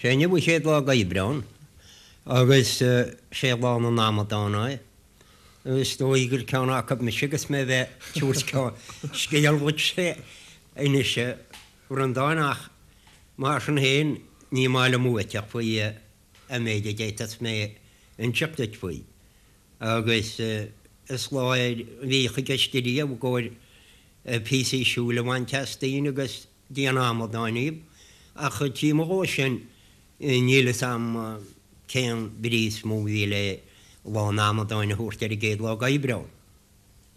Sé inniu an chéad lá d'Aibreán agus sé lá na n-amadán é. Is dóigh gur ceann acu mise agus mé bheith ag tabhairt scéal dhuitse anois a Bhreandáin ach mar sin féin ní maith liom uait faoi an méid a d'fhéadfas mé inseacht duit faoi. Agus is lá é a bhíodh i gceist ariamh i gcomhair píosaí siúil a bhaint as daoine agus déanamh amadáin díobh, ach taobh amuigh dhó sin níl fhios a'm cén bhrí is mó a bhí le Lá an Amadáin a thabhairt ar an gcéad lá d'Aibreán.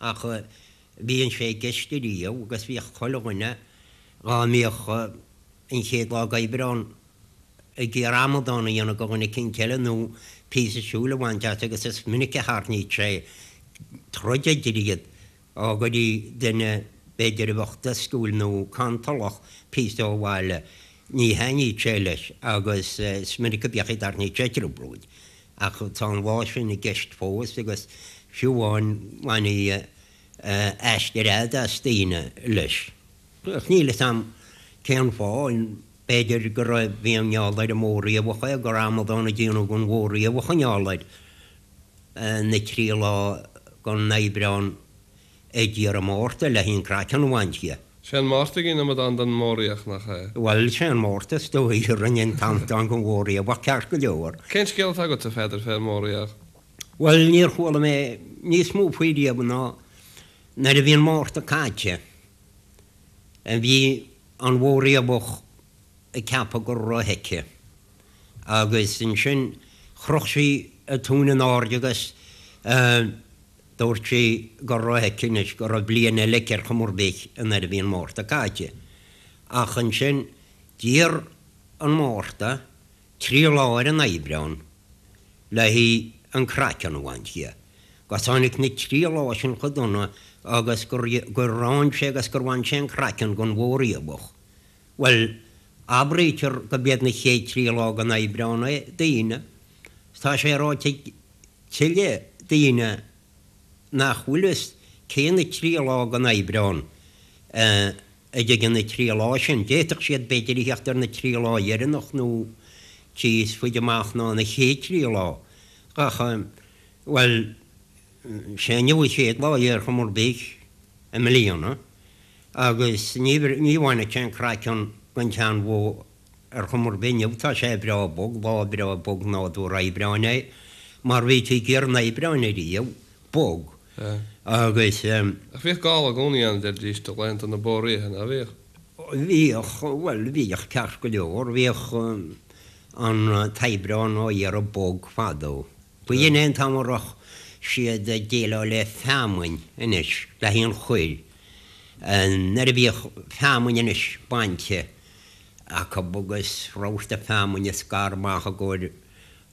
Ach bhíonn sé i gceist ariamh agus bhíodh chuile dhuine dhá mbíodh an chéad lá d'Aibreán ag iarraidh amadán a dhéanamh de dhuine eicínt eile nó píosa siúil a bhaint as agus is minic a tharraingíodh sé troid idir iad Dá gcuireadh duine, b'fhéidir, a bheadh doscúil nó cantalach, píosa ó bhaile, ní thaitníodh sé leis agus is minic a bhíodh a dtarraingíodh sé trioblóid. Ach tá an lá sin i gceist fós agus fiú amháin bhaintí aistear fhada as daoine leis. Ach níl fhios a'm cén fáth, b'fhéidir go raibh, bhí i ngeall ar an mBó Riabhach é, gur amadán a déanadh den Bhó Riabhach i ngeall air. na trí lá den Aibreán ag iarraidh Márta le an craiceann a bhaint dhe. Sé an Márta a dhein amadán den mBó Riabhach, nach ea? Bhuel, sé an Márta is dóigh a rinne an t-amadán den Bhó Riabhach ceart go leor. Cén scéal atá agatsa, a Pheadair, fén mBó Riabhach? Bhuel, níor chuala mé níos mó faoi riamh ná nuair a bhí an Márta caite, bhí an Bhó Riabhach ag ceapadh go raibh aici. Agus ansin chroch sí a tóin in airde agus dúirt sí go raibh aici anois, go raibh bliain eile aici ar chuma ar bith nuair a bhí an Márta caite. Ach ansin d'iarr an Márta trí lá ar an Aibreán le haghaidh an craiceann a bhaint dhe. Agus tháinig na trí lá sin chomh dona agus gur fhan sé agus gur bhain sé an craiceann den Bhó Riabhach. Bhuel, abraítear gurb iad na chéad trí lá den Aibreán é, daoine. Tá sé ráite ag tuilleadh daoine nach bhfuil fhios cé na trí lá den Aibreán a dtigeann na trí lá sin. D'fhéadfadh siad b'fhéidir a theacht ar na trí lá dheireanach nó níos faide amach ná na chéad trí lá. Ach, bhuel, sé inniu an chéad lá ar chuma ar bith i mbliana. Agus ní ní bhainfeadh sé an craiceann den tseanbhó ar chuma ar bith inniu, tá sé breá bog, lá breá bog nádúrtha Aibreáin é, mar bhítí ag iarraidh an Aibreáin ariamh, bog, agus. Ach bhíodh gála i gcónaí ann, a deiridís, do laethanta na bó riabhaí, ná bhíodh? Bhíodh, bhuel, bhíodh ceart go leor, bhíodh an t-Aibreán á iarraidh bog fadó. B'in é an t-am a raibh siad ag déileáil le feamainn anois, le haghaidh an chuir. Nuair a bhíodh feamainn anois bainte acu agus rabharta feamainne scartha amach i gcomhair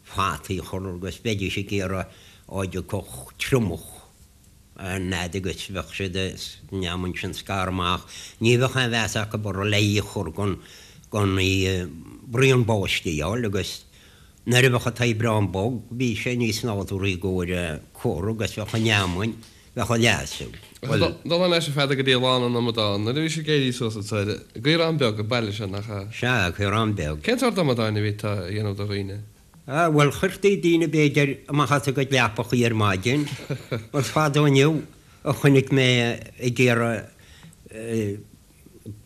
fataí a chur agus bheidís ag iarraidh á dtiocfadh triomach an fhad agus bheadh siad an fheamainn sin scartha amach ní bheadh aon mheas acu uirthi le í a chur gan gan í braon báistí a fháil agus Nuair a bheadh an t-Aibreán bog bhí sé níos nádúrthaí i gcomhair cur agus bheadh an fheamainn, bheadh a leasú. Bhuel. Dul thar n-ais a Pheadair go dtí Lá na nAmadán, nuair a bhí sibh ag éirí suas an tsaoire, i gCaorán Beag, an baile seo, nach ea? Sea, Caorán Beag. Cén sórt amadáin a bhítí a dhéanamh do dhaoine? Ah, bhuel, chuirtí daoine b'fhéidir amach as a gcuid leapachaí ar maidin. Is fada inniu a chonaic mé ag iarraidh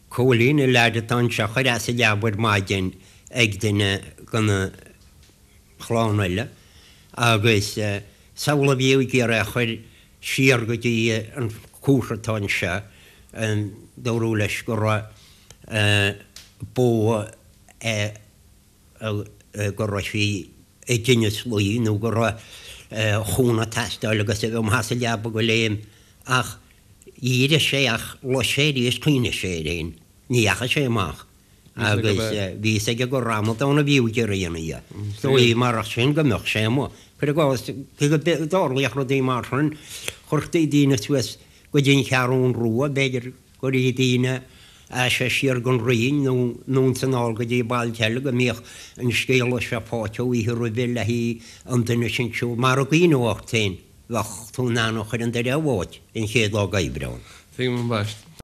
Cóilín, an leaid atá anseo, a chur as a leaba ar maidin ag duine de na chlann eile agus samhlaigh a bhí ag iarraidh é a chur siar go dtí an cúrs atá anseo, dúradh leis go raibh bó go raibh sí i dtinneas luí nó go raibh chúnamh ag teastáil agus a bheith amach as a leaba go léim ach d'éirigh sé ach luigh sé arís chuimhnigh sé air fhéin, ní dheachaigh sé amach agus bhí fhios aige gur amadán a bhí ag iarraidh a dhéanamh dhe. Is dóigh marach sin go mbeadh sé amuigh. Cuir i gcás, cé go dtarlaíodh rudaí mar sin, chuirtí daoine suas go dtí an Cheathrún Rua, b'fhéidir, Chuirtí daoine as siar gon Rinn nó anonn 's anall go dtí bailte eile go mbíodh an scéala seo faighte oíche roimhe le haghaidh an duine sin siúl. Mar a gcuimhneofá ort féin, bheadh tú in ann a chur an doire a bháit an chéad lá d'Aibreán. Tuigim ambaist.